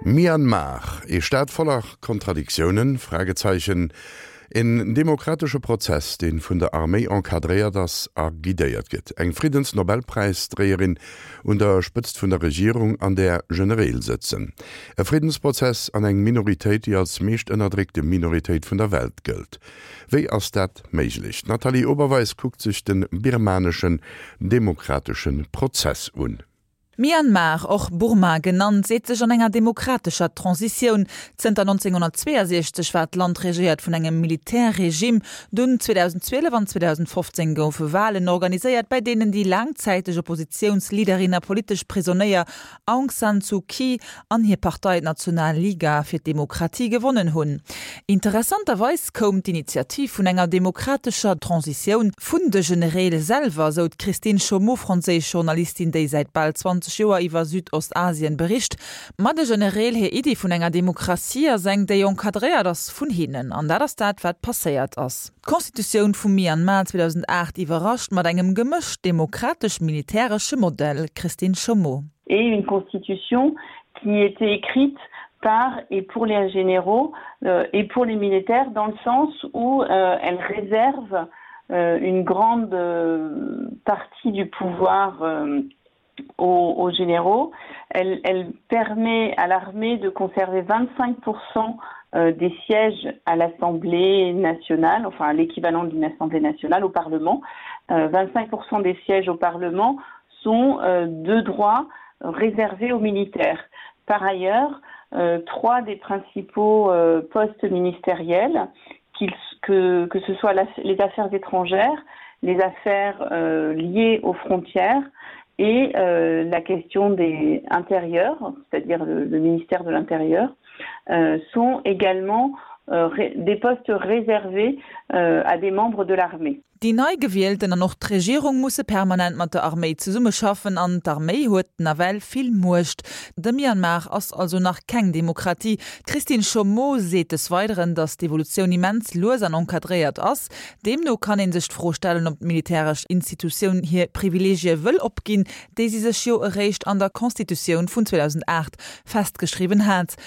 Myanmar, ee Staat voller Kontradiktiounen? Fragezeichen Een demokratesche Prozess, dee vun der Arméi encadréiert ass a guidéiert gëtt. Eng Friddensnobelpräisdréierin un der Spëtzt vun der Regierung, an där Genereel sëtzen. E Friddensprozess an eng Minoritéit, déi als meescht ënnerdréckte Minoritéit vun der Welt gëllt. Wéi ass dat méiglech? D'Nathalie Oberweis kuckt sech de birmaneschen demokratesche Prozess un. Myanmar, och Burma genannt, seet sech an enger demokratescher Transitioun. Zënter 1962 war d'Land regéiert vun engem Militärregime. Dunn 2012 an 2015 goufe Walen organiséiert, bäi deenen déi laangzäiteg Oppositiounsleaderin a politesch Prisonéier Aung San Suu Kyi an hir Partei d'National Liga fir d'Demokratie gewonnen hunn. Interessanterweis koum d'Initiativ vun enger demokratescher Transitioun vun de Genereel selwer, sou d'Christine Chaumeau, franséisch Journalistin, déi säit bal 20 Joer iwwer Südostasien bericht. Ma de Genereel hir Iddi vun enger Demokratie ass eng, déi encadréiert ass vun hinnen. An dat ass dat, wat passéiert ass. D'Constitutioun vum Myanmar 2008 iwwerrascht mat engem gemëscht demokratesch-militäresche Modell, Christine Chaumeau. Et une constitution qui était écrite par et pour les généraux euh, et pour les militaires dans le sens où euh, elle réserve euh, une grande euh, partie du pouvoir euh, aux, aux généraux. Elle, elle permet à l'armée de conserver 25% euh, des sièges à l'Assemblée nationale, enfin à l'équivalent d'une Assemblée nationale au Parlement. Euh, 25% des sièges au Parlement sont euh, de droits réservés aux militaires. Par ailleurs, euh, trois des principaux euh, postes ministériels, que, que ce soit la, les affaires étrangères, les affaires euh, liées aux frontières et euh, la question des intérieurs, c'est-à-dire le, le ministère de l'intérieur, euh, sont également euh, des postes réservés euh, à des membres de l'armée. Déi nei Gewielten an och d'Regierung musse permanent mat der Arméi zesummeschaffen an d'Arméi huet nawell vill Muecht. De Myanmar ass also nach keng Demokratie. D'Christine Chaumeau seet des Weideren, datt d'Evolutioun immens lues an encadréiert ass. Deemno kann ee sech d'Fro stellen, ob d'militäresch Institutioun hir Privileegie wëll opginn, déi si sech jo eréischt an der Constitutioun vun 2008 festgeschriwwen hat.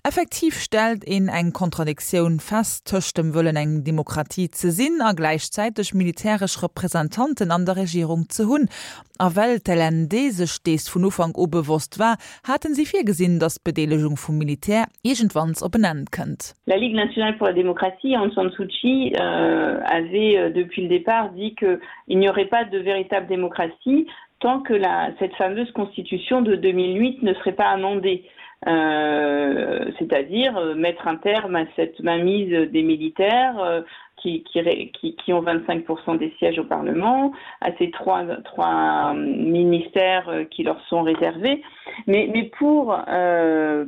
Effektiv stellt een eng Kontradiktioun fest tëscht dem Wëllen eng Demokratie ze sinn a gläichzäiteg militäresch Representanten an der Regierung ze hunn. A well d'LND sech dees vun Ufank u bewosst war, haten si virgesinn, datt d'Bedeelegung vum Militär iergendwanns op en Enn kënnt. La Ligue nationale pour la démocratie, Aung San Suu Kyi, avait depuis le départ dit qu'il n'y aurait pas de véritable démocratie tant que la, cette fameuse constitution de 2008 ne serait pas amendée. Euh, c'est-à-dire euh, mettre un terme à cette mainmise des militaires euh, qui, qui, qui, qui ont 25% des sièges au Parlement, à ces trois, trois ministères euh, qui leur sont réservés. Mais, mais pour euh,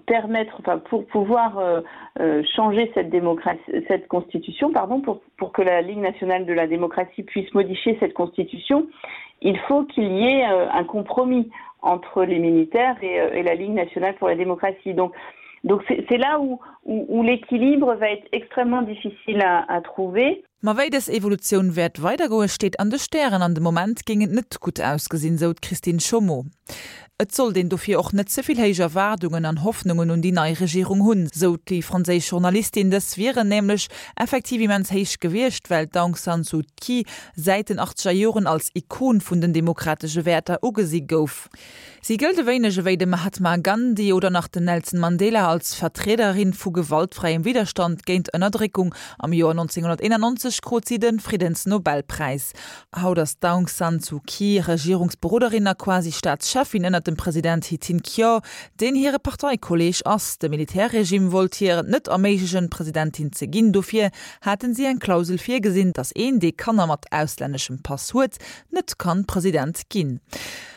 permettre enfin, pour pouvoir euh, euh, changer cette démocratie cette constitution pardon pour, pour que la Ligue nationale de la démocratie puisse modifier cette constitution, il faut qu'il y ait euh, un compromis entre les militaires et, euh, et la Ligue nationale pour la démocratie. Donc, donc c'est là où, où, où l'équilibre va être extrêmement difficile à, à trouver. Ma wéi dës Evolutioun wäert weidergoe steet an de Stären. An de Moment géing et net gutt ausgesinn, sou d'Christine Chaumeau. Et sollt een dofir och net ze vill héich Erwaardungen an Hoffnungen un déi nei Regierung hunn, sou déi franséisch Journalistin. Dës wieren nämlech effektiv immens héich gewiescht, well d'Aung San Suu Kyi säit den achtzeger Joren als Ikon vun den demokratesche Wäerter ugesi gouf. Si gëllt e wéineg ewéi de Mahatma Gandhi oder nach den Nelson Mandela als Vertriederin vu gewaltfräiem Widderstand géint Ënnerdréckung. Am Joer 1991 krut si de Friddensnobelpräis. Haut ass d'Aung San Suu Kyi Regierungsberoderin a quasi Staatscheffin ënnert dem President Htin Kyaw, deen hire Parteikolleeg ass. De Militärregime wollt hir et net erméiglechen, Presidentin ze ginn. Dofir haten si eng Klausel virgesinn, datt een, dee Kanner mat auslänneschem Pass huet, net kann President ginn.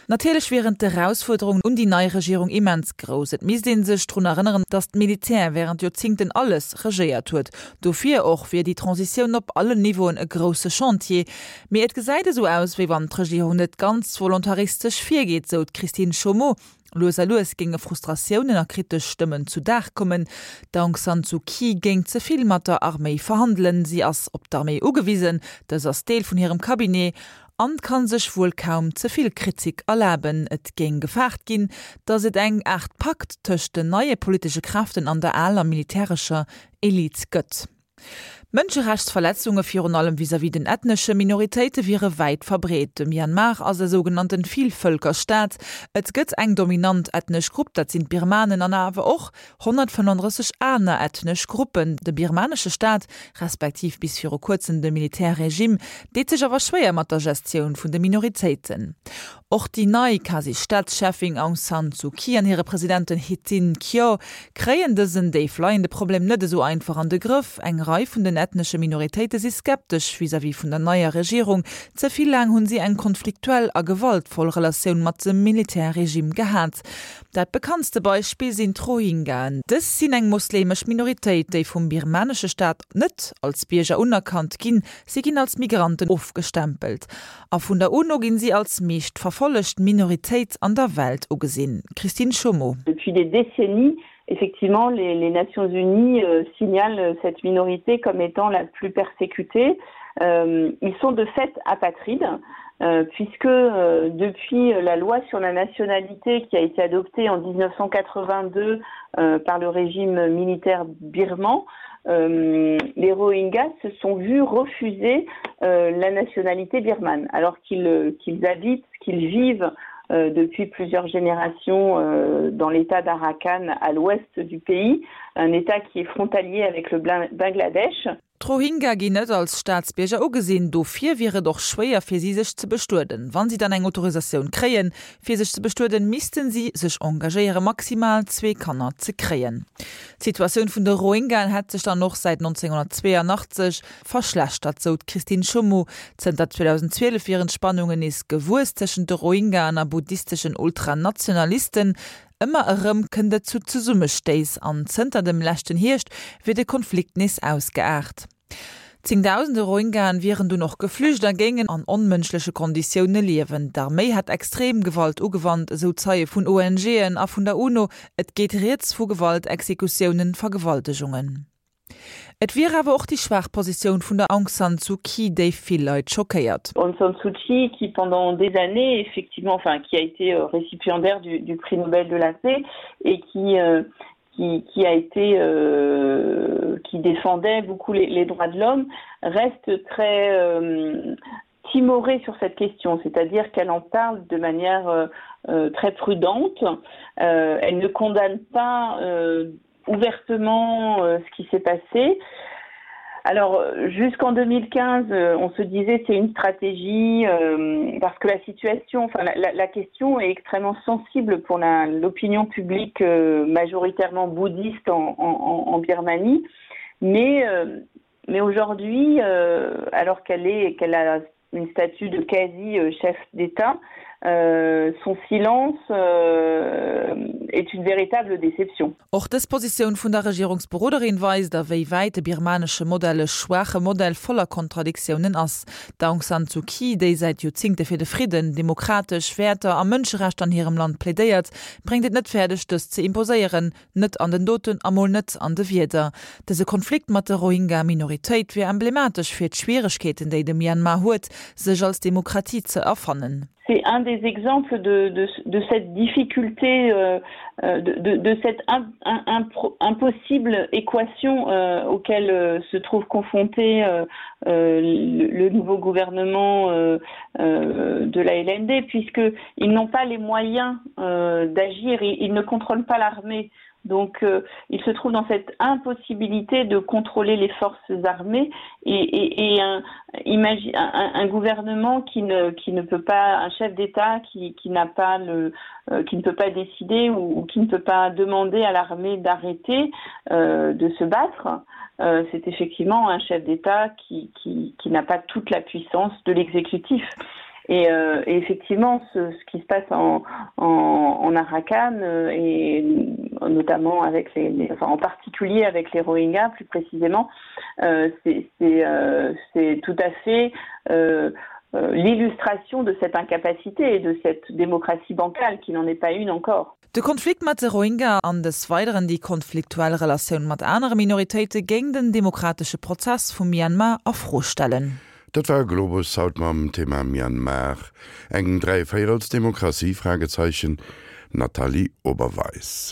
Natierlech wieren d'Erausfuerderungen un déi nei Regierung immens grouss. Et misst ee sech drun erënneren, datt d'Militär wärend Joerzingten alles regéiert huet. Dofir och wier déi Transitioun op allen Niveauen e grousse Chantier. Mee et gesäit esou aus, wéi wann d'Regierung net ganz volontaristesch virgeet, sou d'Christine Chaumeau. Lues a lues géinge Frustratiounen a kritesch Stëmmen zu Dag kommen. D'Aung San Suu Kyi géing ze vill mat der Arméi verhandelen. Si ass op d'Arméi ugewisen, dës ass Deel vun hirem Cabinet. An kann sech wuel kaum ze vill Kritik erlaben. Et géing gefaart ginn, datt et eng Aart Pakt tëscht den neie politesche Kräften an der aler militärescher Elite gëtt. Mënscherechtsverletzunge virun allem vis-à-vis den ethnesche Minoritéite wiere wäit verbreet. De Myanmar ass e sougenannten Villvëlkerstaat. Et gëtt eng dominant ethnesch Grupp, dat sinn d'Birmanen, an awer och 135 aner ethnesch Gruppen. De birmanesche Staat, respektiv bis viru kuerzem de Militärregime, deet sech awer schwéier mat der Gestioun vun de Minoritéiten. Och déi nei Quasi-Staatscheffin Aung San Suu Kyi an hire Presidenten Htin Kyaw kréien dësen déif leiende Problem net esou einfach an de Grëff. Eng Rei vun den ethnesche Minoritéite si skeptesch vis-à-vis vun der neier Regierung. Ze vill laang hunn si eng konfliktuell a gewaltvoll Relatioun mat dem Militärregime gehat. Dat bekanntste Beispill sinn d'Rohingyaen. Dës sinn eng mosleemesch Minoritéit, déi vum birmanesche Staat net als Bierger unerkannt ginn. Si ginn als Migranten ofgestempelt a vun der UNO ginn si als meescht verfollegt Minoritéit an der Welt ugesinn. Christine Chomeau. Depuis des décennies, effectivement, les, les Nations Unies euh, signalent cette minorité comme étant la plus persécutée. Euh, ils sont de fait apatrides. Euh, puisque euh, depuis la loi sur la nationalité qui a été adoptée en 1982 euh, par le régime militaire birman, euh, les Rohingyas se sont vus refuser euh, la nationalité birmane alors qu'ils euh, qu habitent, qu'ils vivent euh, depuis plusieurs générations euh, dans l'état d'Arakan à l'ouest du pays, un état qui est frontalier avec le Bangladesch. D'Rohingya ginn net als Staatsbierger ugesinn, dofir wier et och schwéier fir si sech ze bestueden. Wann si dann eng Autorisatioun kréien, fir sech ze bestueden, missten si sech engagéiere maximal zwee Kanner ze kréien. D'Situatioun vun de Rohingyaen hätt sech dann och säit 1982 verschlechtert, sou d'Christine Chomeau. Zënter 2012 wieren d'Spannungen nees gewuess tëschent de Rohingyaen a buddhisteschen Ultranationalisten. Ëmmer erëm kënnt et zu Zesummestéiss an zënter dem leschten Hierscht wier de Konflikt nees ausgeaart. Zéngdausende Rohingyaen wieren dunn och geflücht a géingen an onmënschleche Konditioune liewen. D'Arméi hätt extrem Gewalt ugewannt, esou Zeie vun ONGen a vun der UNO. Et geet rieds vu Gewalt, Exekutiounen, Vergewaltegungen. Et wier awer och déi schwaach Positioun vun der Aung San Suu Kyi, déi vill Leit schockéiert. Aung San Suu Kyi, qui pendant des années effectivement enfin qui a été euh, récipiendaire du, du prix Nobel de la paix et qui euh, qui, qui a été euh, qui défendait beaucoup les, les droits de l'homme reste très euh, timorée sur cette question, c'est-à-dire qu'elle en parle de manière euh, euh, très prudente. Euh, elle ne condamne pas euh, ouvertement euh, ce qui s'est passé. Alors jusqu'en 2015, euh, on se disait c'est une stratégie euh, parce que la situation enfin la, la, la question est extrêmement sensible pour l'opinion publique euh, majoritairement bouddhiste en, en, en Birmanie. Mais, euh, mais aujourd'hui, euh, alors qu'elle est qu'elle a une statue de quasi euh, chef d'État, euh, son silence euh, est une véritable déception. Och dës Positioun vun der Regierungsberoderin weist, a wéi wäit de birmanesche Modell e schwaache Modell voller Kontradiktiounen ass. D'Aung San Suu Kyi, déi säit Joerzingte fir de Fridden, demokratesch Wäerter a Mënscherechter an hirem Land plädéiert, bréngt et net fäerdeg, dës ze imposéieren, Net an den Doten a mol net an de Wierder. Dëse Konflikt mat der Rohingya-Minoritéit wier emblematesch fir d'Schwieregkeeten, déi de Myanmar huet, sech als Demokratie ze erfannen. C'est un des exemples de, de, de cette difficulté, euh, euh de, de, de cette imp, imp, impossible équation euh, auquel euh, se trouve confronté euh, euh, le, le nouveau gouvernement euh, euh, de la LND, puisqu'ils n'ont pas les moyens euh, d'agir, ils, ils ne contrôlent pas l'armée. Donc euh, il se trouve dans cette impossibilité de contrôler les forces armées et, et, et un, imagine, un, un gouvernement qui ne, qui ne peut pas un chef d'État qui, qui n'a pas le euh, qui ne peut pas décider ou, ou qui ne peut pas demander à l'armée d'arrêter euh, de se battre. Euh, c'est effectivement un chef d'État qui, qui, qui n'a pas toute la puissance de l'exécutif. Et, euh, et effectivement, ce, ce qui se passe en, en, en Arakan euh, et notamment avec les, les enfin, en particulier avec les Rohingyas plus précisément, euh, c'est euh, tout à fait euh, euh, l'illustration de cette incapacité et de cette démocratie bancale qui n'en est pas une encore. De Konflikt mat de Rohingya an des Weideren déi konfliktuell Relatioun mat anere Minoritéite géing den demokratesche Prozess vum Myanmar a Fro stellen. Dat war Globus haut mam Thema Myanmar, eng Dräivéierelsdemokratie? Fragezeichen Nathalie Oberweis.